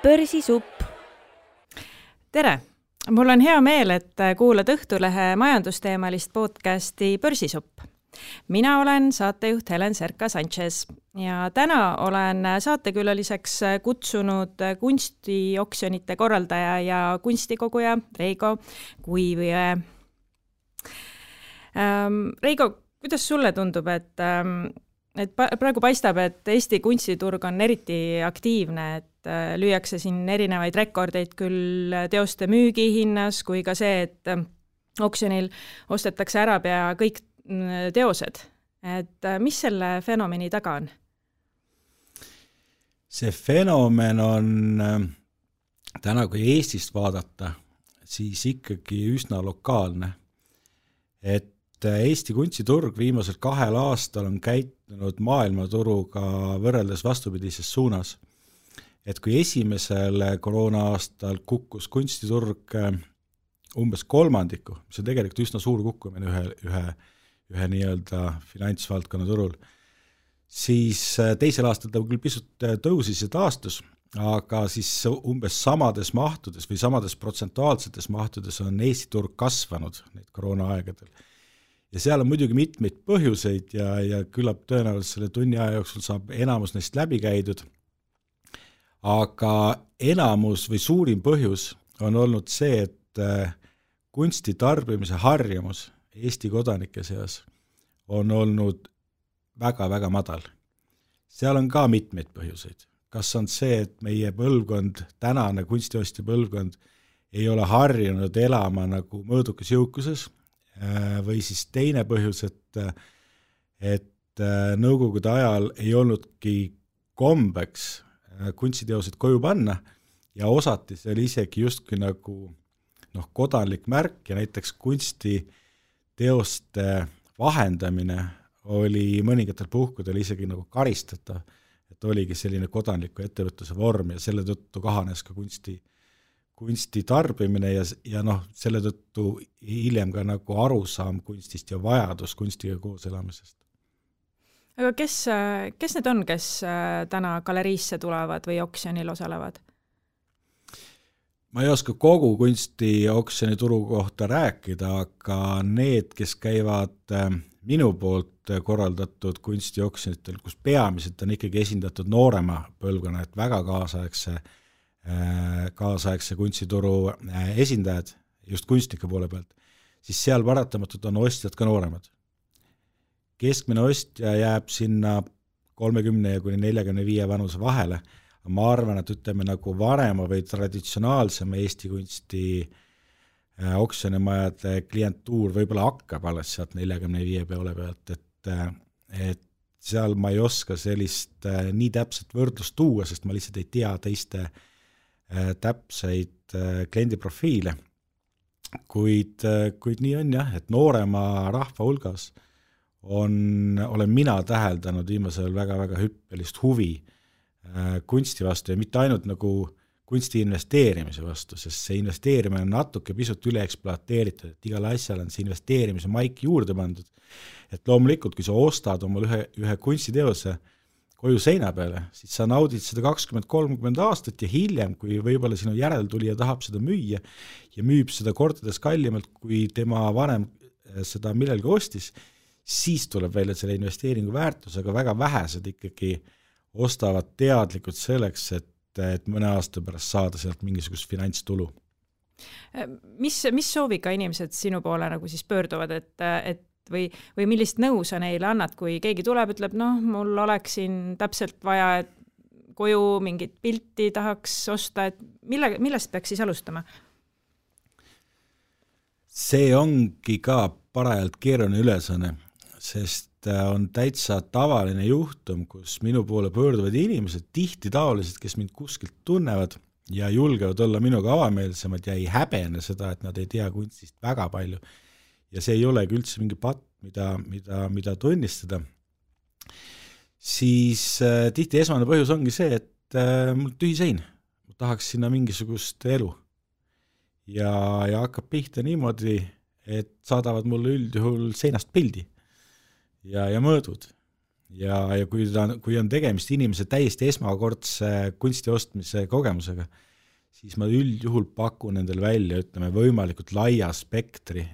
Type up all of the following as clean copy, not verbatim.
Börsisupp. Tere! Mul on hea meel, et kuulad Õhtulehe majandusteemalist podcasti Börsisupp. Mina olen saatejuht Helen Serka-Sanchez ja täna olen saatekülaliseks kutsunud kunstioksjonite korraldaja ja kunstikoguja Reigo Kuivjõe. Reigo, kuidas sulle tundub, et praegu paistab, et Eesti kunstiturg on eriti aktiivne, et lüüakse siin erinevaid rekordeid küll teoste müügihinnas kui ka see, et oksjonil ostetakse ära pea kõik teosed. Et mis selle fenomeni taga on? See fenomen on täna, kui Eestist vaadata, siis ikkagi üsna lokaalne. Et Eesti kunstiturg viimasel 2 aastal on käitunud maailmaturuga võrreldes vastupidises suunas. Et kui esimesel koroona-aastal kukkus kunstiturg umbes 3%, mis on tegelikult üsna suur kukkumine ühe nii-öelda finantsvaldkonna turul, siis teisel aastal ta küll pisut tõusis ja taastus, aga siis umbes samades mahtudes või samades protsentuaalsetes mahtudes on Eesti turg kasvanud neid koroona-aegadel. Ja seal on muidugi mitmeid põhjuseid ja küllap tõenäoliselt selle tunni aja jooksul saab enamus neist läbi käidud. Aga enamus või suurim põhjus on olnud see, et kunsti tarbimise harjumus Eesti kodanike seas on olnud väga-väga madal. Seal on ka mitmeid põhjuseid. Kas on see, et meie põlvkond, tänane kunstiostja põlvkond ei ole harjunud elama nagu mõõdukas jõukuses, või siis teine põhjus, et nõukogude ajal ei olnudki kombeks kunstiteosed koju panna ja osati seal isegi justkui nagu kodanlik märk ja näiteks kunstiteoste vahendamine oli mõningatel puhkudel isegi nagu karistatav, et oligi selline kodanliku ettevõtluse vorm ja selle tõttu kahanes ka kunsti tarbimine ja selle tõttu hiljem ka nagu arusaam kunstist ja vajadus kunstiga koos elamisest. Aga kes need on, kes täna galeriisse tulevad või oksjonil osalevad? Ma ei oska kogu kunstioksjoni turu kohta rääkida, aga need, kes käivad minu poolt korraldatud kunstioksjonitel, kus peamiselt on ikkagi esindatud noorema põlvkonna, et väga kaasaegse kunstituru esindajad, just kunstnike poole pealt, siis seal paratamatult on ostjad ka nooremad. Keskmine ostja jääb sinna 30 ja kuni 45 vanuse vahele. Ma arvan, et ütleme nagu varema või traditsionaalsema Eesti kunsti oksjonimajade klientuur võib-olla hakkab alles sealt 45 peole pealt, et seal ma ei oska sellist nii täpset võrdlust tuua, sest ma lihtsalt ei tea teiste täpseid kliendiprofiile. Kuid nii on jah, et noorema rahva hulgas olen mina täheldanud viimasel väga-väga hüppelist huvi kunsti vastu ja mitte ainult nagu kunsti investeerimise vastu, sest see investeerimine on natuke pisut üle ekspluateeritud, et igal asjal on see investeerimise maik juurde pandud. Et loomulikult, kui sa ostad omal ühe kunstiteose koju seina peale, siis sa naudid seda 20-30 aastat ja hiljem, kui võib-olla sinu järeltulija tahab seda müüa ja müüb seda kordades kallimalt, kui tema vanem seda millelgi ostis, siis tuleb välja selle investeeringu väärtus, aga väga vähesed ikkagi ostavad teadlikult selleks, et mõne aasta pärast saada sealt mingisugust finantstulu. Mis sooviga inimesed sinu poole nagu siis pöörduvad, või millist nõu sa neile annad, kui keegi tuleb, ütleb, mul oleks siin täpselt vaja, et koju mingit pilti tahaks osta, et millest peaks siis alustama? See ongi ka parajalt keeruline ülesanne, sest on täitsa tavaline juhtum, kus minu poole pöörduvad inimesed, tihti taolised, kes mind kuskilt tunnevad ja julgevad olla minuga avameelsemad ja ei häbene seda, et nad ei tea kunstist väga palju. Ja see ei olegi üldse mingi patt, mida tunnistada. Siis tihti esmane põhjus ongi see, et mul tühi sein. Ma tahaks sinna mingisugust elu. Ja hakkab pihta niimoodi, et saadavad mulle üldjuhul seinast pildi ja mõõdud. ja kui on tegemist inimese täiesti esmakordse kunsti ostmise kogemusega, siis ma üldjuhul pakun endale välja, ütleme, võimalikult laia spektri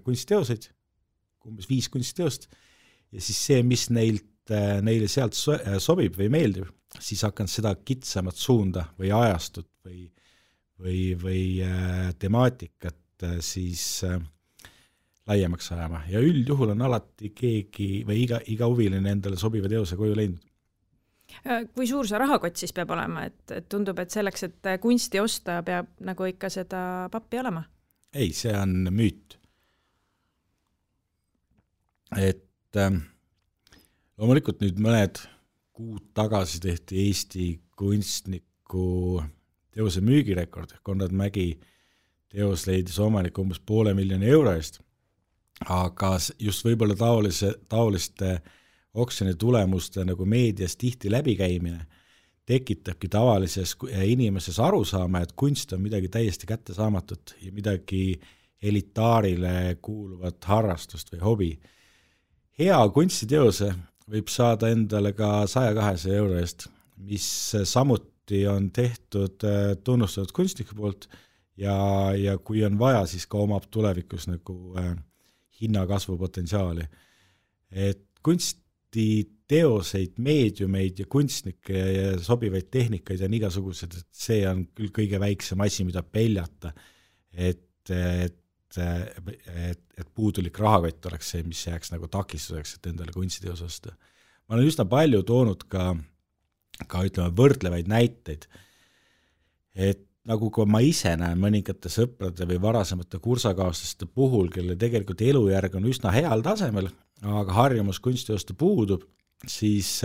kunstiteoseid, umbes 5 kunstiteost, ja siis see, mis neile sealt sobib või meeldib, siis hakkan seda kitsamat suunda või ajastut või temaatikat siis laiemaks ajama. Ja üldjuhul on alati keegi või iga huviline endale sobiva teose koju leidnud. Kui suur see rahakott siis peab olema, et tundub, et selleks, et kunsti osta, peab nagu ikka seda pappi olema? Ei, see on müüt. Et loomulikult nüüd mõned kuud tagasi tehti Eesti kunstniku teose müügirekord, Konrad Mägi teos leidis omaniku umbes €500,000 eest, aga just võib-olla taoliste oksjoni tulemuste nagu meedias tihti läbikäimine tekitabki tavalises inimeses arusaama, et kunst on midagi täiesti kättesaamatut ja midagi elitaarile kuuluvat harrastust või hobi. Hea kunstiteose võib saada endale ka €100-200 eest, mis samuti on tehtud tunnustatud kunstniku poolt ja kui on vaja, siis ka omab tulevikus nagu hinnakasvu potentsiaali. Et kunstiteoseid, meediumeid ja kunstnikke ja sobivaid tehnikaid on igasugused, et see on küll kõige väiksem asi, mida peljata, et puudulik rahakott oleks see, mis jääks nagu takistuseks, et endale kunstiteos osta. Ma olen üsna palju toonud ka ütleme võrdlevaid näiteid, et nagu kui ma ise näen mõningate sõprade või varasemate kursakaaslaste puhul, kelle tegelikult elujärg on üsna heal tasemel, aga harjumus kunstiteoste puudub, siis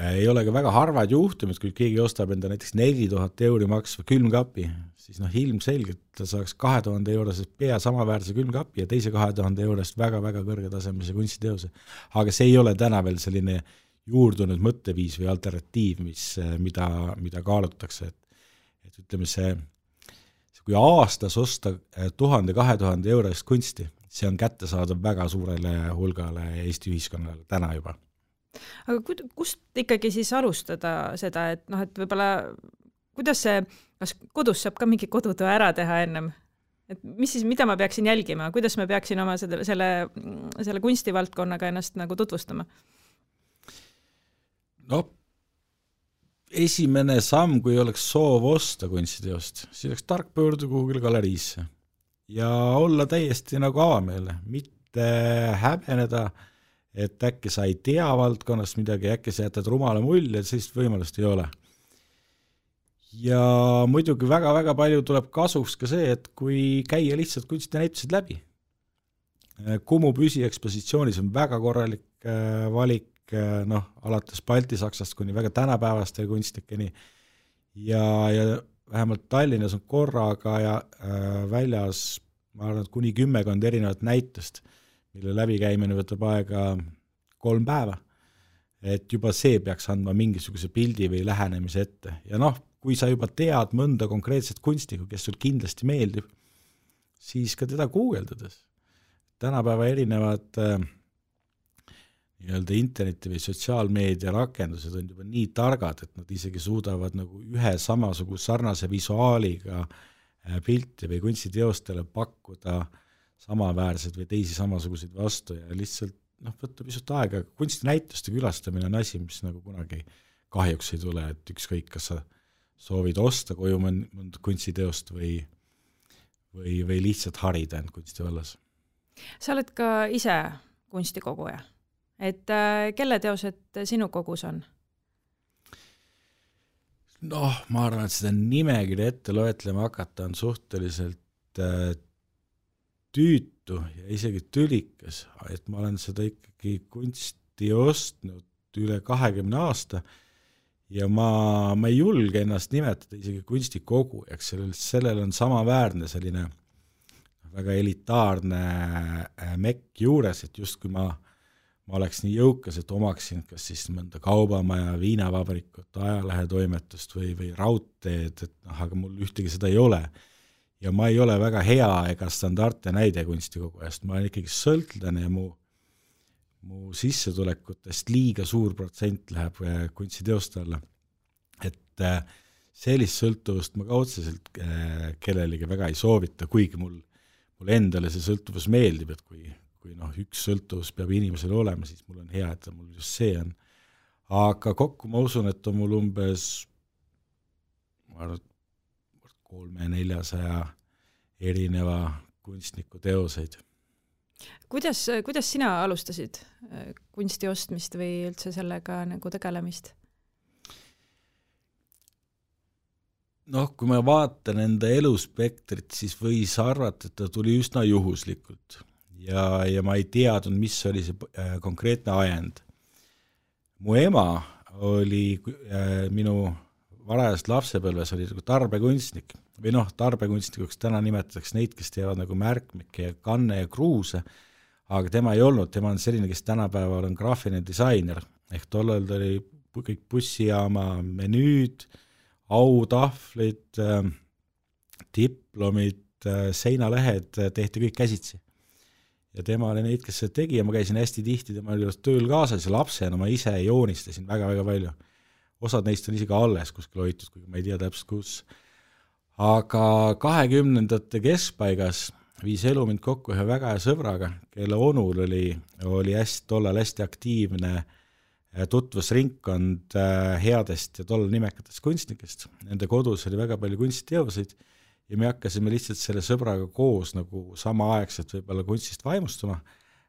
ei ole ka väga harvad juhtumid, kui keegi ostab enda näiteks €4,000 maksva külmkapi, siis ilmselgelt ta saaks €2,000 pea samaväärse külmkapi ja teise €2,000 väga-väga kõrgetasemelise kunstiteose. Aga see ei ole täna veel selline juurdunud mõtteviis või alternatiiv, mida kaalutakse. Et ütleme see, kui aastas osta 1000-2000 euro eest kunsti, see on kättesaadav väga suurele hulgale Eesti ühiskonnale täna juba. Aga kust ikkagi siis alustada seda, et et võib-olla, kuidas see, kas kodus saab ka mingi kodutöö ära teha ennem? Et mis siis, mida ma peaksin jälgima, kuidas ma peaksin oma selle kunstivaldkonnaga ennast nagu tutvustama? Esimene samm, kui oleks soov osta kunstiteost, siis oleks tark pöörduda kuhugile galeriisse ja olla täiesti nagu avameelne, mitte häbeneda, et äkki sa ei tea valdkonnast midagi, äkki sa jätad rumala mulje, et sellist võimalust ei ole. Ja muidugi väga-väga palju tuleb kasuks ka see, et kui käia lihtsalt kunstinäitused läbi. Kumu püsiekspositsioonis on väga korralik valik, alates Balti-Saksast kuni väga tänapäevaste kunstnikeni ja vähemalt Tallinnas on korraga ja väljas, ma arvan, kuni 10 erinevat näitust, mille läbikäimine võtab aega 3 päeva, et juba see peaks andma mingisuguse pildi või lähenemise ette. Ja kui sa juba tead mõnda konkreetset kunstnikku, kes sul kindlasti meeldib, siis ka teda guugeldades. Tänapäeva erinevad nii-öelda interneti või sotsiaalmeedia rakendused on juba nii targad, et nad isegi suudavad nagu ühe samasuguse sarnase visuaaliga pilti või kunstiteostele pakkuda samaväärseid või teisi samasuguseid vastu ja lihtsalt võtta pisut aega. Kunstinäituste külastamine on asi, mis nagu kunagi kahjuks ei tule, et ükskõik, kas sa soovid osta koju mõnda kunstiteost või lihtsalt harida end kunstivallas. Sa oled ka ise kunstikoguja, et kelle teosed sinu kogus on? Ma arvan, et seda nimekirja ette loetlema hakata on suhteliselt tüütu ja isegi tülikas, et ma olen seda ikkagi kunsti ostnud üle 20 aasta ja ma ei julge ennast nimetada isegi kunstikogujaks, sellel on samaväärne selline väga elitaarne mekk juures, et just kui ma oleks nii jõukas, et omaksin kas siis mõnda kaubamaja, viinavabrikut, ajalehetoimetust või raudteed, et aga mul ühtegi seda ei ole. Ja ma ei ole väga hea ega standardne näide kunstikogujast, ma olen ikkagi sõltlane ja mu mu sissetulekutest liiga suur protsent läheb kunstiteoste alla. Et sellist sõltuvust ma ka otseselt kellelegi väga ei soovita, kuigi mul endale see sõltuvus meeldib, et kui üks sõltuvus peab inimesel olema, siis mul on hea, et mul just see on. Aga kokku ma usun, et on mul umbes 300-400 erineva kunstniku teoseid. Kuidas sina alustasid kunsti ostmist või üldse sellega nagu tegelemist? Kui ma vaatan enda eluspektrit, siis võis arvata, et ta tuli üsna juhuslikult ja ma ei teadnud, mis oli see konkreetne ajend. Mu ema oli minu varajast lapsepõlves oli tarbekunstnik või tarbekunstnikuks täna nimetatakse neid, kes teevad nagu märkmikke ja kanne ja kruuse, aga tema ei olnud, tema on selline, kes tänapäeval on graafiline disainer, ehk tollal ta oli kõik bussijaama menüüd, autahvlid, diplomid, seinalehed tehti kõik käsitsi. Ja tema oli neid, kes seda tegi ja ma käisin hästi tihti tema juures tööl kaasas ja lapsena ma ise joonistasin väga-väga palju. Osad neist on isegi alles kuskil hoitud, kuigi ma ei tea täpselt kus. Aga 20. keskpaigas viis elu mind kokku ühe väga hea sõbraga, kelle onul oli tollal hästi aktiivne tutvusringkond headest ja tollal nimekatest kunstnikest. Nende kodus oli väga palju kunstiteoseid ja me hakkasime lihtsalt selle sõbraga koos nagu samaaegselt võib-olla kunstist vaimustuma,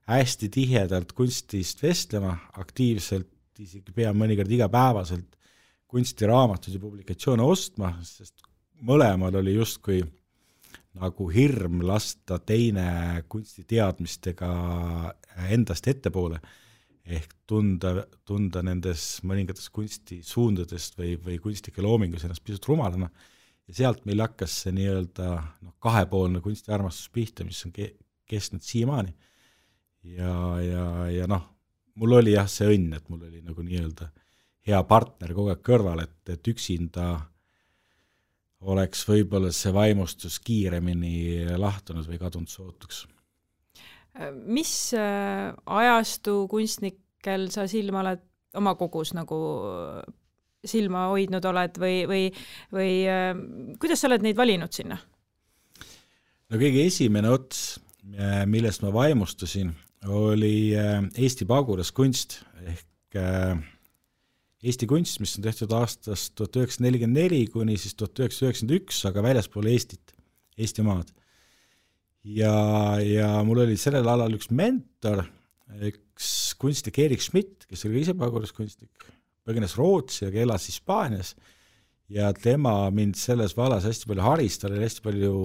hästi tihedalt kunstist vestlema, aktiivselt, isegi pea mõnikord igapäevaselt kunstiraamatuid ja publikatsioone ostma, sest mõlemal oli justkui nagu hirm lasta teine kunstiteadmistega endast ettepoole, ehk tunda nendes mõningates kunstisuundadest või kunstnike loomingus ennast pisut rumalana. Ja sealt meil hakkas see nii-öelda kahepoolne kunstiarmastus pihta, mis on kestnud siiamaani. Ja mul oli see õnn, et mul oli nagu nii-öelda hea partner kogu aeg kõrval, et üksinda oleks võib-olla see vaimustus kiiremini lahtunud või kadunud sootuks. Mis ajastu kunstnikel sa silma oled oma kogus nagu silma hoidnud oled või kuidas sa oled neid valinud sinna? Kõige esimene ots, millest ma vaimustusin, oli Eesti pagulaskunst ehk Eesti kunst, mis on tehtud aastast 1944 kuni siis 1991, aga väljaspool Eestit, Eestimaad. Ja mul oli sellel alal üks mentor, üks kunstnik Erik Schmidt, kes oli ise pagulaskunstnik, põgenes Rootsi, aga elas Hispaanias ja tema mind selles vallas hästi palju haris, tal oli hästi palju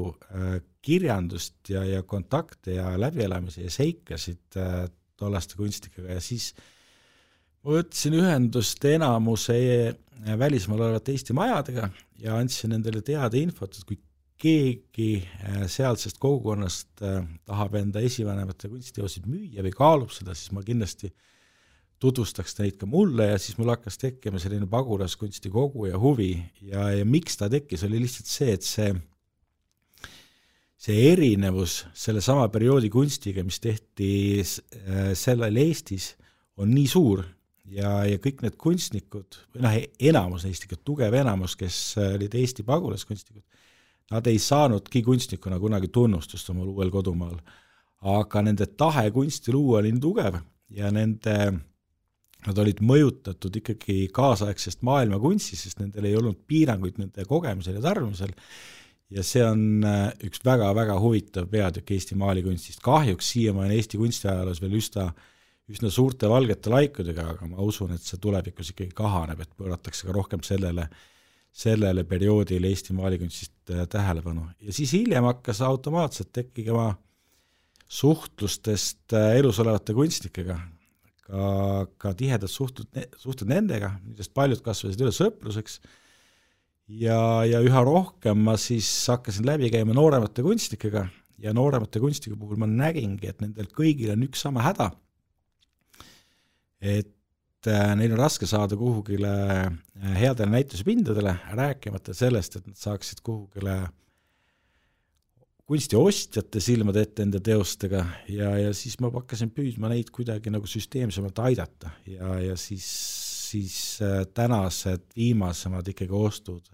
kirjandust ja kontakte ja läbielamisi ja seikasid tollaste kunstnikega ja siis ma võtsin ühendust enamuse välismaal olevate Eesti majadega ja andsin nendele teada infot, et kui keegi sealsest kogukonnast tahab enda esivanemate kunstiteosid müüa või kaalub seda, siis ma kindlasti tutvustaks neid ka mulle ja siis mul hakkas tekkima selline pagulaskunsti kogu ja huvi ja miks ta tekkis, oli lihtsalt see, et see erinevus selle sama perioodi kunstiga, mis tehti sellel Eestis, on nii suur ja kõik need kunstnikud, enamus neist ikka tugev enamus, kes olid Eesti pagulaskunstnikud, nad ei saanudki kunstnikuna kunagi tunnustust omal uuel kodumaal, aga nende tahe kunsti luua oli nii tugev ja nad olid mõjutatud ikkagi kaasaegsest maailma kunstist, sest nendel ei olnud piiranguid nende kogemisel ja tarbimisel ja see on üks väga-väga huvitav peatükk Eesti maalikunstist. Kahjuks siiamaani Eesti kunstiajaloos veel üsna suurte valgete laikudega, aga ma usun, et see tulevikus ikkagi kahaneb, et pööratakse ka rohkem sellele perioodile Eesti maalikunstist tähelepanu. Ja siis hiljem hakkas automaatselt tekkima suhtlustest elus olevate kunstnikega, ka tihedad suhted nendega, millest paljud kasvasid üle sõpruseks ja üha rohkem ma siis hakkasin läbi käima nooremate kunstnikega ja nooremate kunstnike puhul ma nägingi, et nendel kõigil on üks sama häda, et neil on raske saada kuhugile headele näituspindadele, rääkimata sellest, et nad saaksid kunstiostjate silmad ette enda teostega ja siis ma hakkasin püüdma neid kuidagi nagu süsteemsemalt aidata ja siis tänased viimasemad ikkagi ostud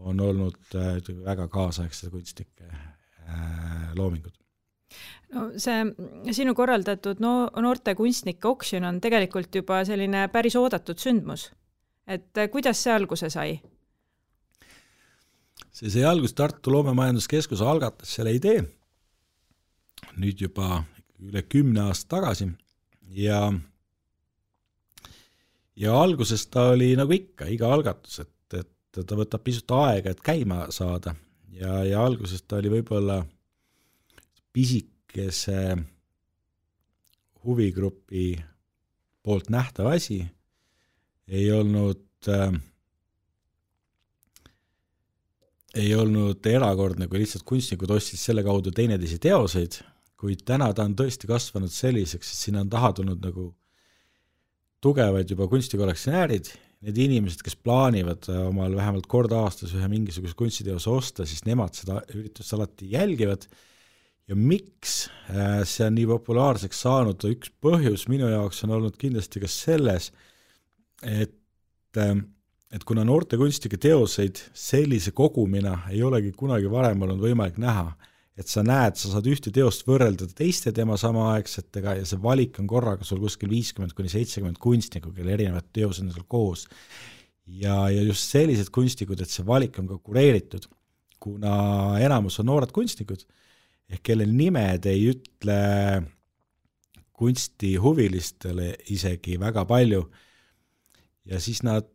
on olnud väga kaasaegsed kunstnike loomingud. No see sinu korraldatud noorte kunstnike oksjon on tegelikult juba selline päris oodatud sündmus. Et kuidas see alguse sai? See sai algust Tartu Loomemajanduskeskus algatas selle idee nüüd juba üle 10 aasta tagasi ja alguses ta oli nagu ikka, iga algatus, et ta võtab pisut aega, et käima saada ja alguses ta oli võib-olla pisikese huvigrupi poolt nähtav asi, ei olnud erakordne, kui lihtsalt kunstnikud ostsid selle kaudu teineteisi teoseid, kuid täna ta on tõesti kasvanud selliseks, et sinna on taha tulnud nagu tugevad juba kunstikollektsionäärid, need inimesed, kes plaanivad omal vähemalt kord aastas ühe mingisuguse kunstiteose osta, siis nemad seda üritust alati jälgivad ja miks see on nii populaarseks saanud, üks põhjus minu jaoks on olnud kindlasti ka selles, et kuna noorte kunstnike teoseid sellise kogumina ei olegi kunagi varem olnud võimalik näha, et sa näed, sa saad ühte teost võrrelda teiste tema samaaegsetega ja see valik on korraga sul kuskil 50-70 kunstnikku, kelle erinevad teosed on seal koos. Ja just sellised kunstnikud, et see valik on ka kureeritud, kuna enamus on noored kunstnikud, kelle nimed ei ütle kunstihuvilistele isegi väga palju ja siis nad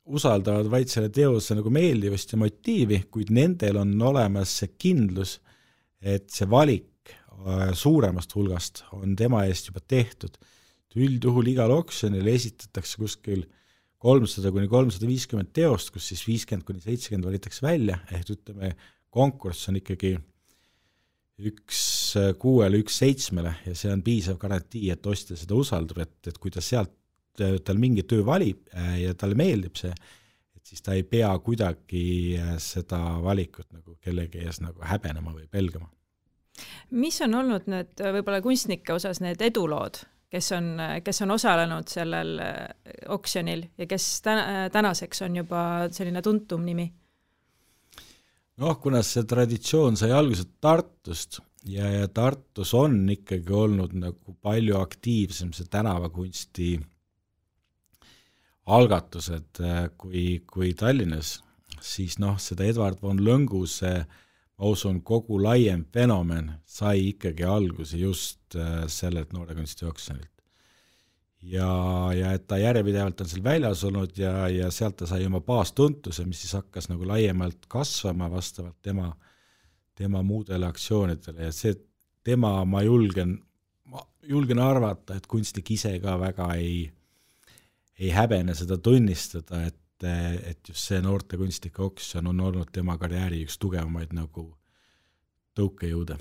usaldavad vaid selle teose nagu meeldivust ja motiivi, kuid nendel on olemas see kindlus, et see valik suuremast hulgast on tema eest juba tehtud. Üldjuhul igal oksjonil esitatakse kuskil 300-350 teost, kus siis 50-70 valitakse välja, ütleme, konkurss on ikkagi 1-6-1-7 ja see on piisav garantii, et ostja seda usaldab, et kui ta sealt tal mingi töö valib ja talle meeldib see, et siis ta ei pea kuidagi seda valikut nagu kellegi ees nagu häbenema või pelgama. Mis on olnud need võib-olla kunstnike osas need edulood, kes on osalenud sellel oksjonil ja kes tänaseks on juba selline tuntum nimi? Kuna see traditsioon sai algused Tartust ja Tartus on ikkagi olnud nagu palju aktiivsem see tänavakunsti algatused kui Tallinnas, siis seda Edward von Lõnguse, ma usun, kogu laiem fenomen sai ikkagi alguse just sellelt noore kunsti oksjonilt. Ja et ta järjepidevalt on seal väljas olnud ja sealt ta sai oma baastuntuse, mis siis hakkas nagu laiemalt kasvama vastavalt tema muudele aktsioonidele ja see tema ma julgen arvata, et kunstnik ise ka väga ei häbene seda tunnistada, et just see noorte kunstnike oksjon on olnud tema karjääri üks tugevamaid nagu tõukejõude.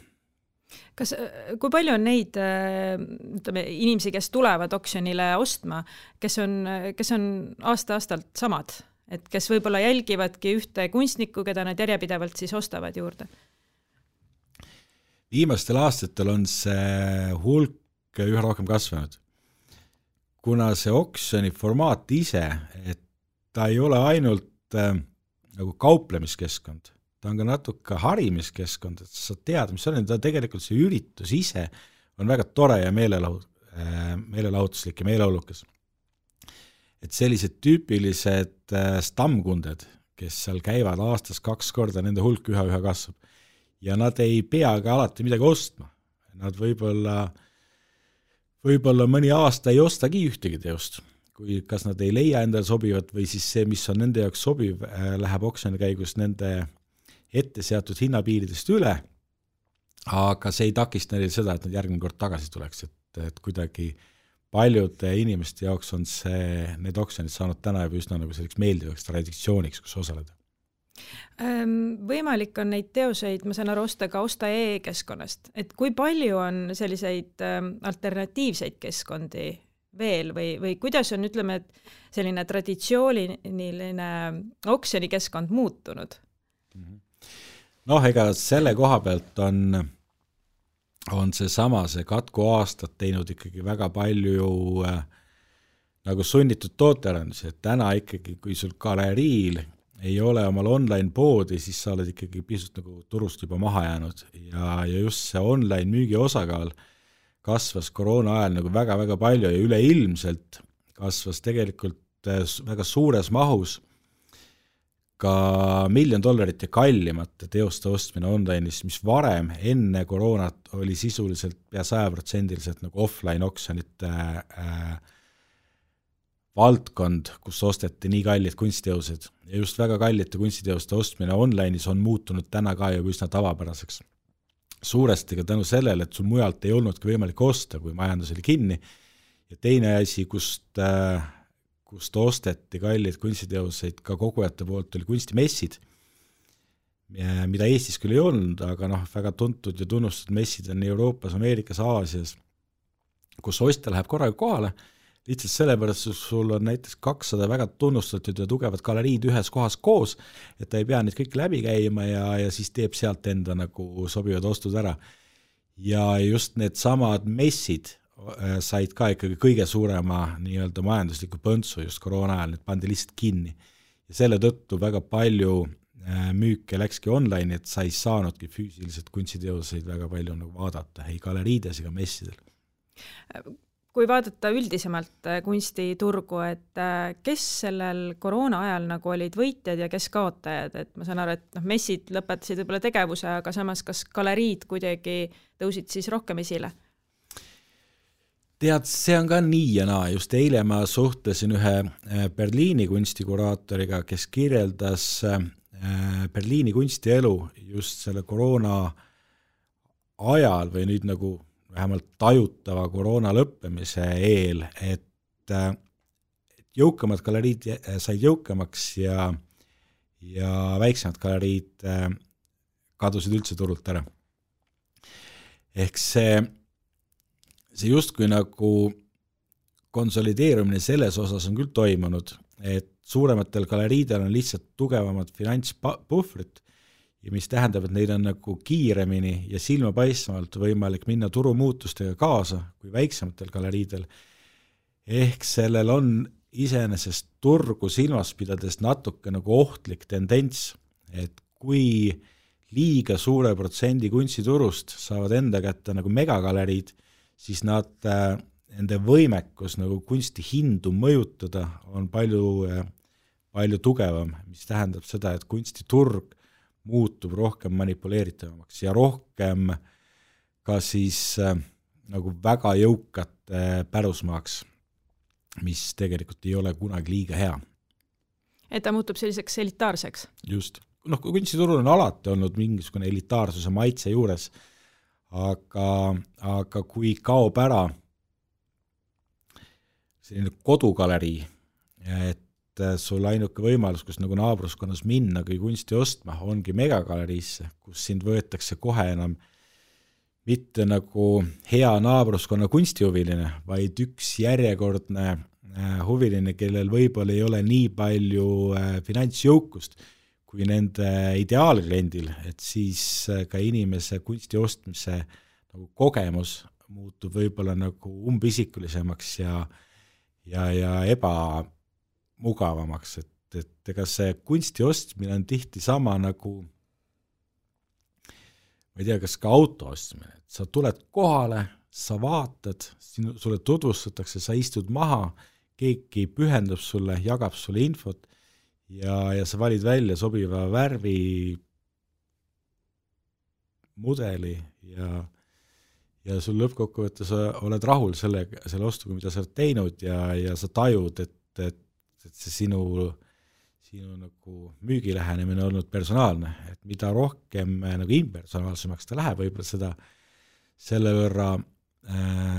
Kui palju on neid inimesi, kes tulevad oksjonile ostma, kes on aasta-aastalt samad, et kes võib-olla jälgivadki ühte kunstnikku, keda nad järjepidevalt siis ostavad juurde? Viimastel aastatel on see hulk üha rohkem kasvanud. Kuna see oksjoni formaat ise, et ta ei ole ainult nagu kauplemiskeskkond, ta on ka natuke harimiskeskkond, et sa tead, mis on, ta tegelikult see üritus ise on väga tore ja meelelahutuslik ja meeleolukas. Et sellised tüüpilised stammkunded, kes seal käivad aastas 2 korda, nende hulk üha kasvab ja nad ei pea ka alati midagi ostma. Nad võib-olla mõni aasta ei ostagi ühtegi teost, kui kas nad ei leia endale sobivat või siis see, mis on nende jaoks sobiv, läheb oksjoni käigus nende ette seatud hinnapiiridest üle, aga see ei takista neil seda, et nad järgmine kord tagasi tuleks, et kuidagi paljude inimeste jaoks on need oksjonid saanud täna juba üsna nagu selliseks meeldivaks traditsiooniks, kus osaleda. Võimalik on neid teoseid, ma saan aru, osta ka Osta.ee-keskkonnast, et kui palju on selliseid alternatiivseid keskkondi veel või kuidas on, ütleme, et selline traditsiooniline oksjonikeskkond muutunud? Noh, ega selle koha pealt on see Katku aastad teinud ikkagi väga palju nagu sunnitud tootearendusi, et täna ikkagi, kui sul galeriil ei ole omal online poodi, siis sa oled ikkagi pisut nagu turust juba maha jäänud ja just see online müügi osakaal kasvas koroona ajal nagu väga-väga palju ja üleilmselt kasvas tegelikult väga suures mahus ka $1 miljon ja kallimate teoste ostmine online'is, mis varem enne koroonat oli sisuliselt pea 100% nagu offline oksjonite valdkond, kus osteti nii kallid kunstiteosed ja just väga kallite kunstiteoste ostmine online'is on muutunud täna ka juba üsna tavapäraseks. Suuresti ka tänu sellele, et sul mujalt ei olnudki võimalik osta, kui majandus oli kinni ja teine asi, kust osteti kallid kunstiteoseid ka kogujate poolt, oli kunstimessid, mida Eestis küll ei olnud, aga väga tuntud ja tunnustatud messid on Euroopas, Ameerikas, Aasias, kus ostja läheb korraga kohale, lihtsalt sellepärast, et sul on näiteks 200 väga tunnustatud ja tugevad galeriid ühes kohas koos, et ta ei pea neid kõik läbi käima ja siis teeb sealt enda nagu sobivad ostud ära. Ja just need samad messid said ka ikkagi kõige suurema nii-öelda majandusliku põntsu just koroona ajal, need pandi lihtsalt kinni. Ja selle tõttu väga palju müüke läkski online, et sa ei saanudki füüsiliselt kunstiteoseid väga palju nagu vaadata, ei galeriides ega messidel. Kui vaadata üldisemalt kunstiturgu, et kes sellel koroona ajal nagu olid võitjad ja kes kaotajad, et ma saan aru, et messid lõpetasid võib-olla tegevuse, aga samas kas galeriid kuidagi tõusid siis rohkem esile? Tead, see on ka nii ja naa, just eile ma suhtlesin ühe Berliini kunstikuraatoriga, kes kirjeldas Berliini kunstielu just selle koroona ajal või nüüd nagu vähemalt tajutava koroona lõppemise eel, et jõukamad galeriid said jõukamaks ja väiksemad galeriid kadusid üldse turult ära. Ehk see justkui nagu konsolideerumine selles osas on küll toimunud, et suurematel galeriidel on lihtsalt tugevamad finantspuhvrid ja mis tähendab, et neil on nagu kiiremini ja silmapaistvalt võimalik minna turumuutustega kaasa kui väiksematel galeriidel. Ehk sellel on iseenesest turgu silmas pidades natuke nagu ohtlik tendents, et kui liiga suure protsendi kunstiturust saavad enda kätte nagu megagaleriid, siis nende võimekus nagu kunsti hindu mõjutada on palju tugevam, mis tähendab seda, et kunstiturg muutub rohkem manipuleeritavamaks ja rohkem ka siis nagu väga jõukate pärusmaaks, mis tegelikult ei ole kunagi liiga hea. Et ta muutub selliseks elitaarseks? Just. Kunstiturul on alati olnud mingisugune elitaarsuse maitse juures, aga kui kaob ära selline kodugalerii, et sul ainuke võimalus, kus nagu naabruskonnas minna, kui kunsti ostma, ongi megagaleriisse, kus sind võetakse kohe enam mitte nagu hea naabruskonna kunstihuviline, vaid üks järjekordne huviline, kellel võib-olla ei ole nii palju finantsjõukust kui nende ideaalkliendil, et siis ka inimese kunsti ostmise nagu kogemus muutub võib-olla nagu umbisikulisemaks ja ebamugavamaks, et ega see kunsti ostmine on tihti sama nagu, ma ei tea, kas ka auto ostmine, et sa tuled kohale, sa vaatad, sulle tutvustatakse, sa istud maha, keegi pühendab sulle, jagab sulle infot ja sa valid välja sobiva värvi, mudeli ja sul lõppkokkuvõttes oled rahul selle ostuga, mida sa oled teinud ja sa tajud, et see sinu nagu müügilähenemine on olnud personaalne, et mida rohkem nagu impersonaalsemaks ta läheb, võib-olla seda selle võrra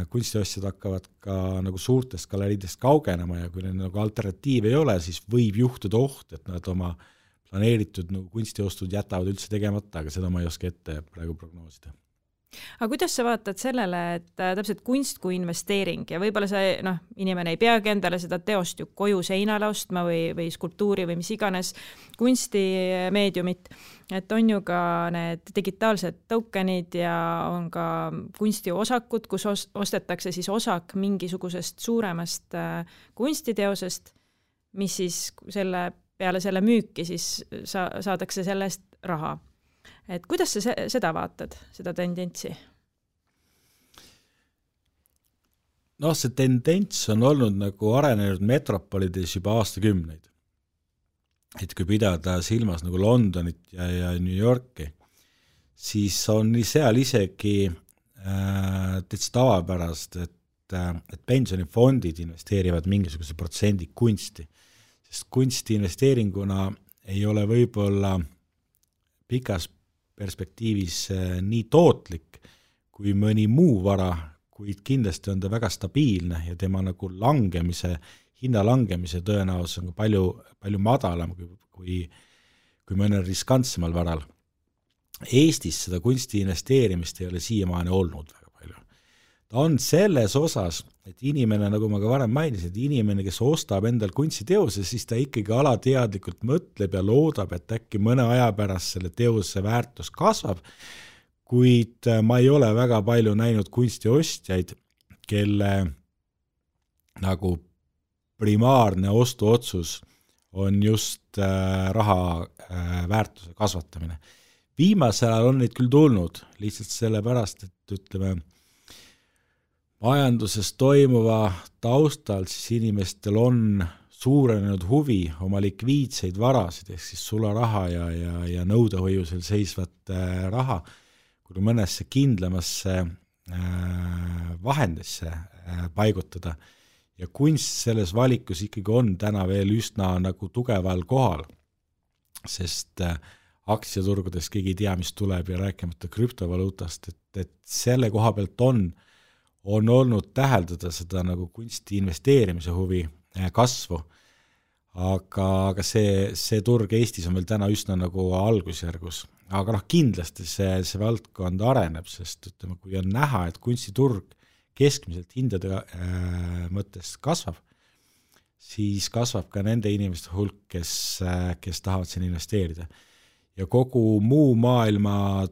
kunstiostjad hakkavad ka nagu suurtest galeriidest kaugenema ja kui neil nagu alternatiiv ei ole, siis võib juhtuda oht, et nad oma planeeritud nagu kunstiostud jätavad üldse tegemata, aga seda ma ei oska ette praegu prognoosida. Aga kuidas sa vaatad sellele, et täpselt kunst kui investeering ja võib-olla see, inimene ei peagi endale seda teost ju koju seinale ostma või skulptuuri või mis iganes kunstimeediumit, et on ju ka need digitaalsed tokenid ja on ka kunstiosakud, kus ostetakse siis osak mingisugusest suuremast kunstiteosest, mis siis peale selle müüki siis saadakse sellest raha. Et kuidas sa seda vaatad, seda tendentsi? See tendents on olnud nagu arenenud metropolides juba aastakümneid. Et kui pidada silmas nagu Londonit ja New Yorki, siis on seal isegi täitsa tavapärast, et pensionifondid investeerivad mingisuguse protsendi kunsti, sest kunsti investeeringuna ei ole võib-olla pikas perspektiivis nii tootlik kui mõni muu vara, kuid kindlasti on ta väga stabiilne ja tema nagu hinna langemise tõenäosus on palju, palju madalam kui mõnel riskantsemal varal. Eestis seda kunsti investeerimist ei ole siiamaani olnud väga palju. Ta on selles osas, et inimene, nagu ma ka varem mainisin, et inimene, kes ostab endal kunstiteose, siis ta ikkagi alateadlikult mõtleb ja loodab, et äkki mõne aja pärast selle teose väärtus kasvab, kuid ma ei ole väga palju näinud kunstiostjaid, kelle nagu primaarne ostuotsus on just raha väärtuse kasvatamine. Viimasel ajal on neid küll tulnud, lihtsalt sellepärast, et ütleme, majanduses toimuva taustal siis inimestel on suurenenud huvi oma likviidseid varasid, ehk siis sularaha ja nõudehoiusel seisvat raha, kui mõnesse kindlamasse vahendisse paigutada. Ja kunst selles valikus ikkagi on täna veel üsna nagu tugeval kohal, sest aktsiaturgudes keegi ei tea, mis tuleb ja rääkimata krüptovaluutast, et selle koha pealt on olnud täheldada seda nagu kunsti investeerimise huvi kasvu, aga see turg Eestis on veel täna üsna nagu algusjärgus. Aga kindlasti see valdkond areneb, sest ütleme, kui on näha, et kunstiturg keskmiselt hindade mõttes kasvab, siis kasvab ka nende inimeste hulk, kes tahavad siin investeerida. Ja kogu muu maailma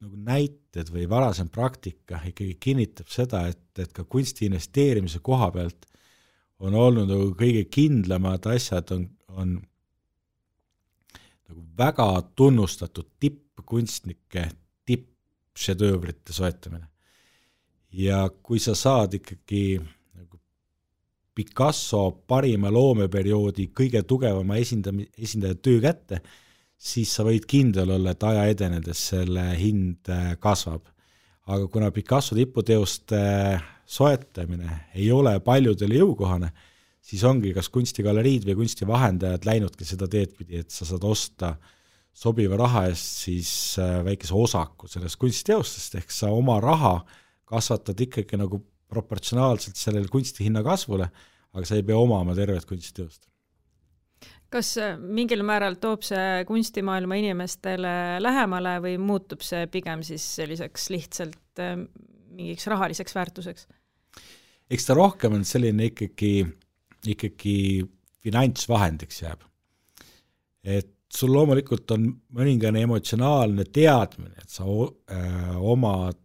nagu näited või varasem praktika ikkagi kinnitab seda, et ka kunsti investeerimise koha pealt on olnud nagu kõige kindlamad asjad on nagu väga tunnustatud tippkunstnike tippšedöövrite soetamine. Ja kui sa saad ikkagi nagu Picasso parima loomeperioodi kõige tugevama esindaja töö kätte, siis sa võid kindel olla, et aja edenedes selle hind kasvab. Aga kuna Picasso tiputeoste soetamine ei ole paljudele jõukohane, siis ongi kas kunstigaleriid või kunstivahendajad läinudki seda teed pidi, et sa saad osta sobiva raha eest siis väikese osaku sellest kunstiteostest, ehk sa oma raha kasvatad ikkagi nagu proportsionaalselt sellele kunstihinna kasvule, aga sa ei pea omama tervet kunstiteost. Kas mingil määral toob see kunstimaailma inimestele lähemale või muutub see pigem siis selliseks lihtsalt mingiks rahaliseks väärtuseks? Eks ta rohkem on selline ikkagi finantsvahendiks jääb. Et sul loomulikult on mõningane emotsionaalne teadmine, et sa omad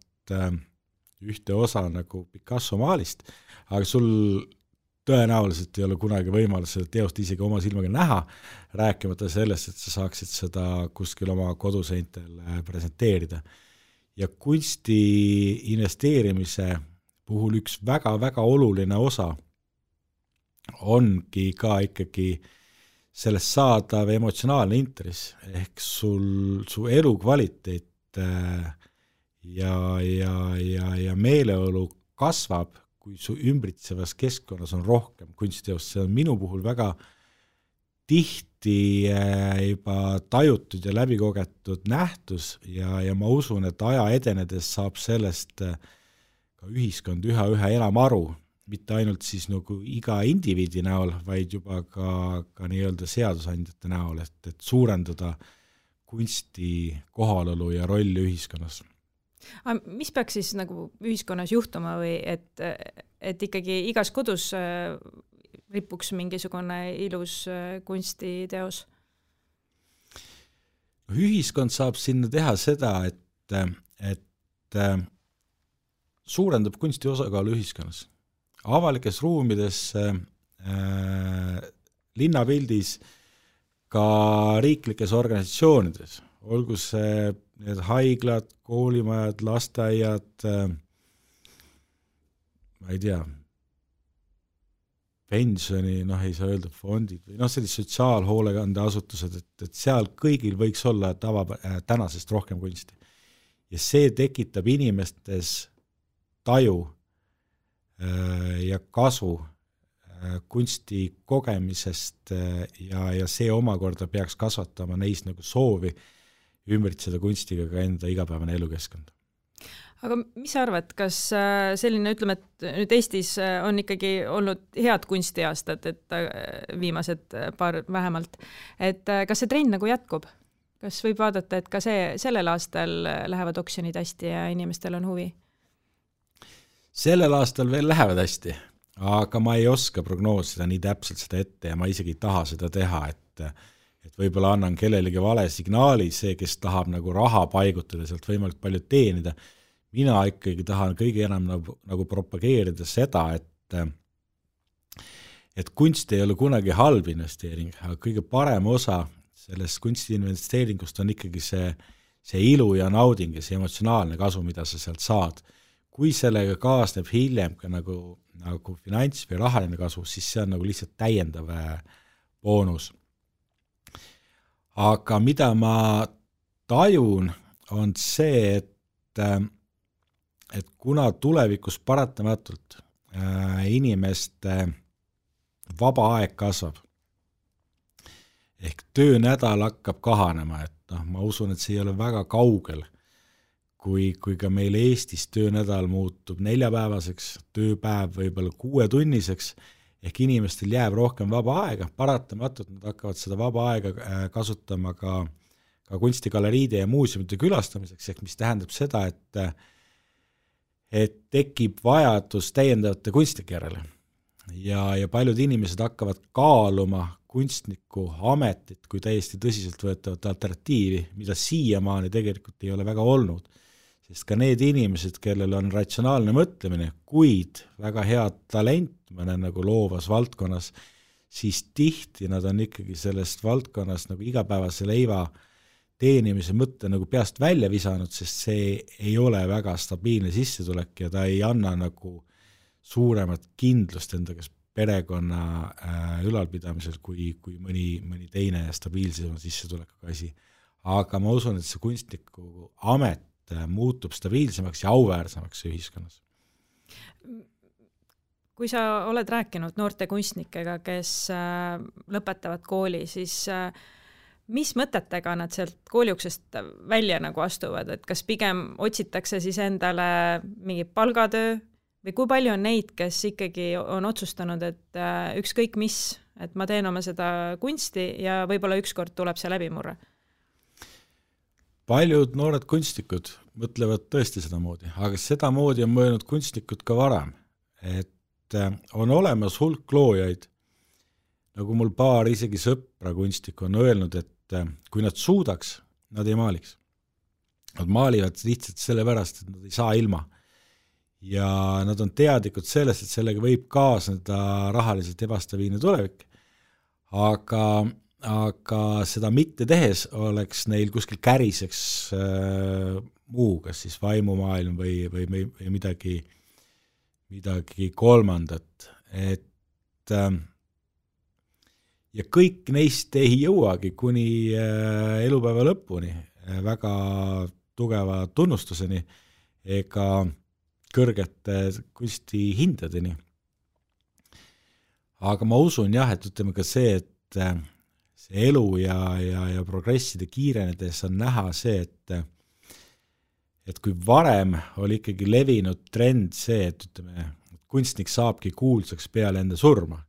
ühte osa nagu Picasso maalist, aga sul tõenäoliselt ei ole kunagi võimalus seda teost isegi oma silmaga näha, rääkimata sellest, et sa saaksid seda kuskil oma koduseintel presenteerida. Ja kunsti investeerimise puhul üks väga-väga oluline osa ongi ka ikkagi sellest saadav emotsionaalne intress, ehk su elukvaliteet ja meeleolu kasvab, kui su ümbritsevas keskkonnas on rohkem kunstiteost. See on minu puhul väga tihti juba tajutud ja läbikogetud nähtus ja ma usun, et aja edenedes saab sellest ka ühiskond üha enam aru, mitte ainult siis nagu iga indiviidi näol, vaid juba ka nii-öelda seadusandjate näol, et suurendada kunsti kohalolu ja rolli ühiskonnas. Mis peaks siis nagu ühiskonnas juhtuma või et ikkagi igas kodus ripuks mingisugune ilus kunstiteos? Ühiskond saab sinna teha seda, et suurendab kunsti osakaalu ühiskonnas. Avalikes ruumides, linnapildis, ka riiklikes organisatsioonides, olgu see need haiglad, koolimajad, lasteaiad, ma ei tea, pensioni, ei saa öelda fondid või sellised sotsiaalhoolekandeasutused, et seal kõigil võiks olla tänasest rohkem kunsti. Ja see tekitab inimestes taju ja kasu kunsti kogemisest ja see omakorda peaks kasvatama neis nagu soovi ümbritseda kunstiga ka enda igapäevane elukeskkond. Aga mis sa arvad, kas selline, ütleme, et nüüd Eestis on ikkagi olnud head kunstiaastad, et viimased paar vähemalt, et kas see trend nagu jätkub? Kas võib vaadata, et ka sellel aastal lähevad oksjonid hästi ja inimestel on huvi? Sellel aastal veel lähevad hästi, aga ma ei oska prognoosida nii täpselt seda ette ja ma isegi ei taha seda teha, et võib-olla annan kellelegi vale signaali, see, kes tahab nagu raha paigutada, sealt võimalik palju teenida. Mina ikkagi tahan kõige enam nagu propageerida seda, et kunst ei ole kunagi halb investeering, aga kõige parem osa sellest kunstiinvesteeringust on ikkagi see ilu ja nauding ja see emotsionaalne kasu, mida sa sealt saad. Kui sellega kaasneb hiljem ka nagu finants või rahaline kasu, siis see on nagu lihtsalt täiendav boonus. Aga mida ma tajun, on see, et kuna tulevikus paratamatult inimeste vaba aeg kasvab, ehk töönädal hakkab kahanema, et ma usun, et see ei ole väga kaugel, kui ka meil Eestis töönädal muutub 4-päevaseks, tööpäev võib-olla 6-tunniseks, ehk inimestel jääb rohkem vaba aega, paratamatult nad hakkavad seda vaba aega kasutama ka kunstigaleriide ja muuseumide külastamiseks, ehk mis tähendab seda, et tekib vajadus täiendavate kunstnike järele. Ja paljud inimesed hakkavad kaaluma kunstniku ametit kui täiesti tõsiselt võetavat alternatiivi, mida siiamaani tegelikult ei ole väga olnud. Sest ka need inimesed, kellel on ratsionaalne mõtlemine, kuid väga head talent mõne nagu loovas valdkonnas, siis tihti nad on ikkagi sellest valdkonnas nagu igapäevase leiva teenimise mõtte nagu peast välja visanud, sest see ei ole väga stabiilne sissetulek ja ta ei anna nagu suuremat kindlust enda kes perekonna ülalpidamisel kui mõni teine stabiilsema sissetulekuga asi. Aga ma usun, et see kunstniku amet muutub stabiilsemaks ja auväärsemaks ühiskonnas. Kui sa oled rääkinud noorte kunstnikega, kes lõpetavad kooli, siis mis mõtetega nad sealt kooliuksest välja nagu astuvad, et kas pigem otsitakse siis endale mingi palgatöö või kui palju on neid, kes ikkagi on otsustanud, et ükskõik mis, et ma teen oma seda kunsti ja võib-olla ükskord tuleb see läbimurre? Paljud noored kunstnikud mõtlevad tõesti seda moodi, aga seda moodi on mõelnud kunstnikud ka varem, et on olemas hulk loojaid, nagu mul paar isegi sõpra kunstnikku on öelnud, et kui nad suudaks, nad ei maaliks. Nad maalivad lihtsalt sellepärast, et nad ei saa ilma. Ja nad on teadlikud sellest, et sellega võib kaasneda rahaliselt ebastabiilne tulevik. Aga seda mitte tehes oleks neil kuskil käriseks muu, kas siis vaimumaailm või midagi kolmandat. Ja kõik neist ei jõuagi kuni elupäeva lõpuni väga tugeva tunnustuseni ega kõrgete kunstihindadeni. Aga ma usun jah, et ütleme ka see, et see elu ja progresside kiirenedes on näha see, et kui varem oli ikkagi levinud trend see, et ütleme, kunstnik saabki kuulsaks peale enda surma,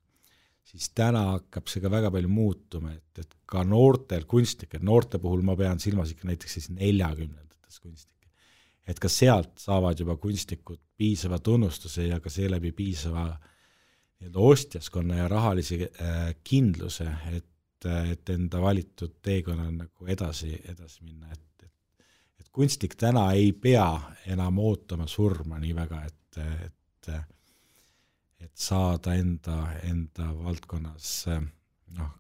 siis täna hakkab see ka väga palju muutuma, et ka noortel kunstnikel, noorte puhul ma pean silmas ikka näiteks siis 40-ndates kunstnikke, et ka sealt saavad juba kunstnikud piisava tunnustuse ja ka seeläbi piisava ostjaskonna ja rahalisi kindluse, et enda valitud teekonna nagu edasi minna, et kunstnik täna ei pea enam ootama surma nii väga, et saada enda valdkonnas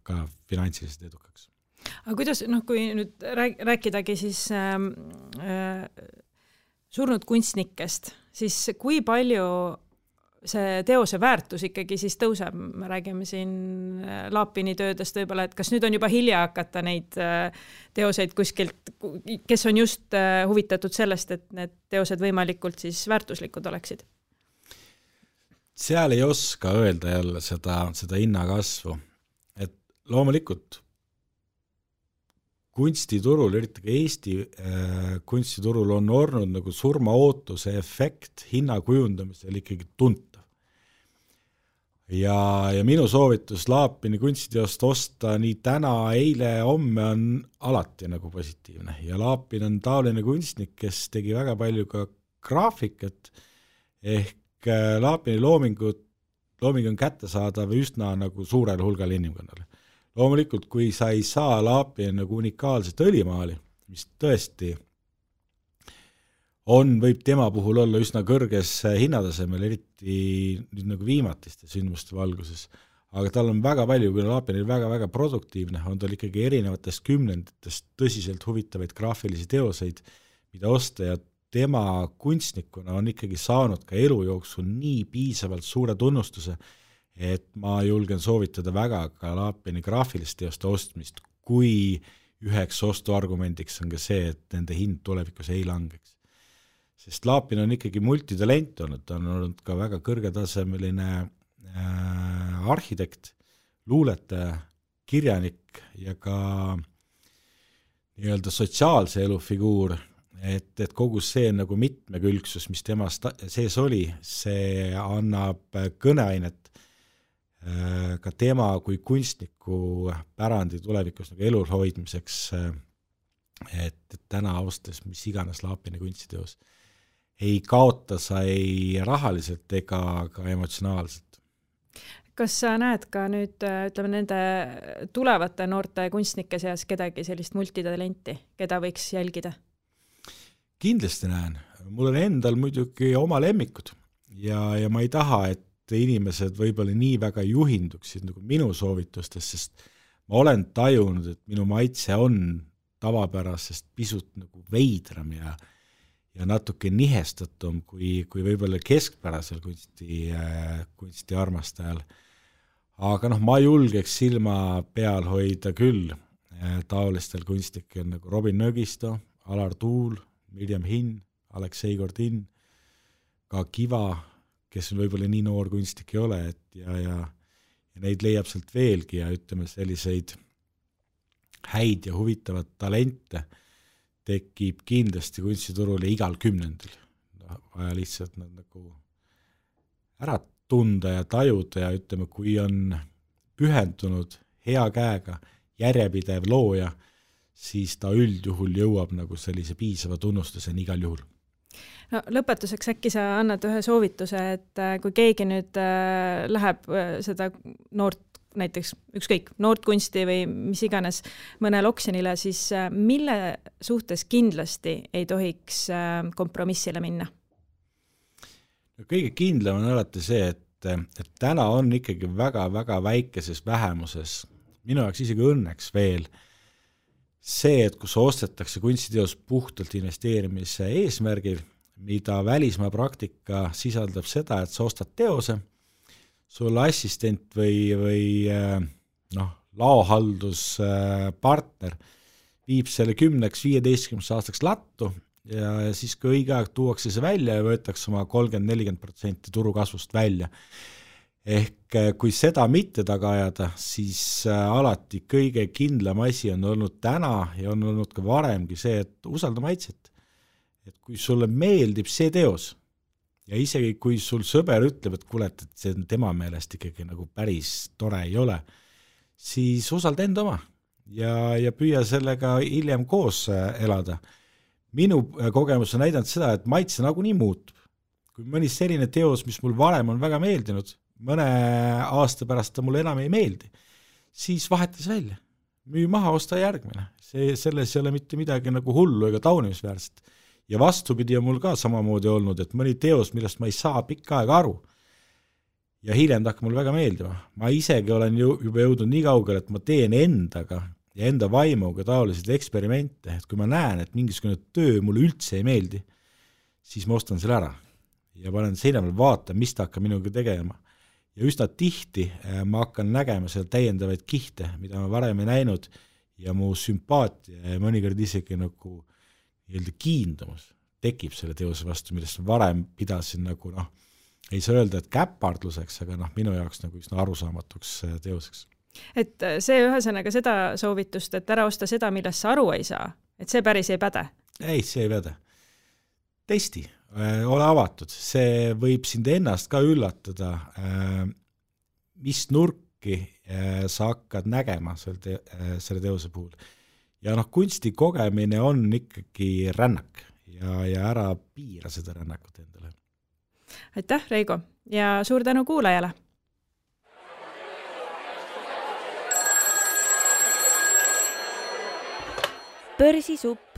ka finantsiliselt edukaks. Aga kuidas, kui nüüd rääkidagi siis surnud kunstnikest, siis kui palju see teose väärtus ikkagi siis tõuseb? Me räägime siin Laapini töödest võib-olla, et kas nüüd on juba hilja hakata neid teoseid kuskilt, kes on just huvitatud sellest, et need teosed võimalikult siis väärtuslikud oleksid? Seal ei oska öelda jälle seda hinnakasvu, et loomulikult kunstiturul, eriti ka Eesti kunstiturul on olnud nagu surmaootuse efekt hinna kujundamisel ikkagi tuntav. Ja minu soovitus Laapini kunstiteost osta nii täna, eile, homme on alati nagu positiivne ja Laapin on taoline kunstnik, kes tegi väga palju ka graafikat, ehk Laapini looming on kättesaadav üsna nagu suurel hulgal inimkonnale. Loomulikult, kui sa ei saa Laapini nagu unikaalset õlimaali, mis tõesti võib tema puhul olla üsna kõrges hinnatasemel, eriti nüüd nagu viimatiste sündmuste valguses, aga tal on väga palju, kui Laapini väga-väga produktiivne, on tal ikkagi erinevatest kümnenditest tõsiselt huvitavaid graafilisi teoseid, mida osta ja tema kunstnikuna on ikkagi saanud ka elu jooksul nii piisavalt suure tunnustuse, et ma julgen soovitada väga ka Laapini graafilist teoste ostmist, kui üheks ostuargumendiks on ka see, et nende hind tulevikus ei langeks. Sest Laapin on ikkagi multitalent olnud, ta on olnud ka väga kõrgetasemeline arhitekt, luuletaja, kirjanik ja ka nii-öelda sotsiaalse elu figuur, et kogu see nagu mitmekülgsus, mis temas sees oli, see annab kõneainet ka tema kui kunstniku pärandi tulevikus nagu elul hoidmiseks, et täna ostes mis iganes Laapini kunstiteos ei kaota sa ei rahaliselt ega ka emotsionaalselt. Kas sa näed ka nüüd, ütleme, nende tulevate noorte kunstnike seas kedagi sellist multitalenti, keda võiks jälgida? Kindlasti näen. Mul on endal muidugi oma lemmikud ja ma ei taha, et inimesed võib-olla nii väga juhinduksid nagu minu soovitustes, sest ma olen tajunud, et minu maitse on tavapärasest pisut nagu veidram ja natuke nihestatum kui võib-olla keskpärasel kunsti armastajal. Aga ma julgeks silma peal hoida küll taolistel kunstnikel nagu Robin Nõgisto, Alar Tuul, Mirjam Hinn, Aleksei Gordin, ka Kiva, kes on võib-olla nii noor kunstnik ei ole, ja neid leiab sealt veelgi ja ütleme selliseid häid ja huvitavad talente tekib kindlasti kunstiturul ja igal kümnendil. Vaja lihtsalt nad nagu ära tunda ja tajuda ja ütleme, kui on pühendunud hea käega, järjepidev looja, siis ta üldjuhul jõuab nagu sellise piisava tunnustuseni igal juhul. No, lõpetuseks äkki sa annad ühe soovituse, et kui keegi nüüd läheb seda noort, näiteks ükskõik, noort kunsti või mis iganes mõnel oksjonile, siis mille suhtes kindlasti ei tohiks kompromissile minna? Kõige kindlam on alati see, et täna on ikkagi väga-väga väikeses vähemuses, minu jaoks isegi õnneks veel, see, et kus ostetakse kunstiteos puhtalt investeerimise eesmärgil, mida välismaa praktika sisaldab seda, et sa ostad teose, sul assistent või laohalduspartner viib selle 10-15 aastaks lattu ja siis kui õige aeg tuuakse see välja ja võetakse oma 30-40% turukasvust välja. Ehk kui seda mitte taga ajada, siis alati kõige kindlam asi on olnud täna ja on olnud ka varemgi see, et usalda maitset. Et kui sulle meeldib see teos ja isegi kui sul sõber ütleb, et kuule, et see tema meelest ikkagi nagu päris tore ei ole, siis usalda enda oma ja püüa sellega hiljem koos elada. Minu kogemus on näidanud seda, et maitse nagunii muutub. Kui mõni selline teos, mis mul varem on väga meeldinud, mõne aasta pärast ta mulle enam ei meeldi, siis vahetas välja. Müü maha, osta järgmine. Selles ei ole mitte midagi nagu hullu ega taunimisväärset. Ja vastupidi on mul ka samamoodi olnud, et mõni teos, millest ma ei saa pikka aega aru ja hiljem ta hakkab mul väga meeldima. Ma isegi olen juba jõudnud nii kaugele, et ma teen endaga ja enda vaimuga taolised eksperimente, et kui ma näen, et mingisugune töö mulle üldse ei meeldi, siis ma ostan selle ära ja panen seina peal vaata, mis ta hakkab minuga tegema. Ja üsna tihti ma hakkan nägema seal täiendavaid kihte, mida ma varem ei näinud ja mu sümpaatia ja mõnikord isegi nagu kiindumus tekib selle teose vastu, millest varem pidasin nagu ei saa öelda, et käpardluseks, aga minu jaoks nagu üsna arusaamatuks teoseks. Et see ühesõnaga seda soovitust, et ära osta seda, millest sa aru ei saa, et see päris ei päde? Ei, see ei päde. Testi, ole avatud, see võib sind ennast ka üllatada, mis nurki sa hakkad nägema selle teose puhul. Ja kunsti kogemine on ikkagi rännak ja ära piira seda rännakut endale. Aitäh, Reigo, ja suur tänu kuulajale! Börsisupp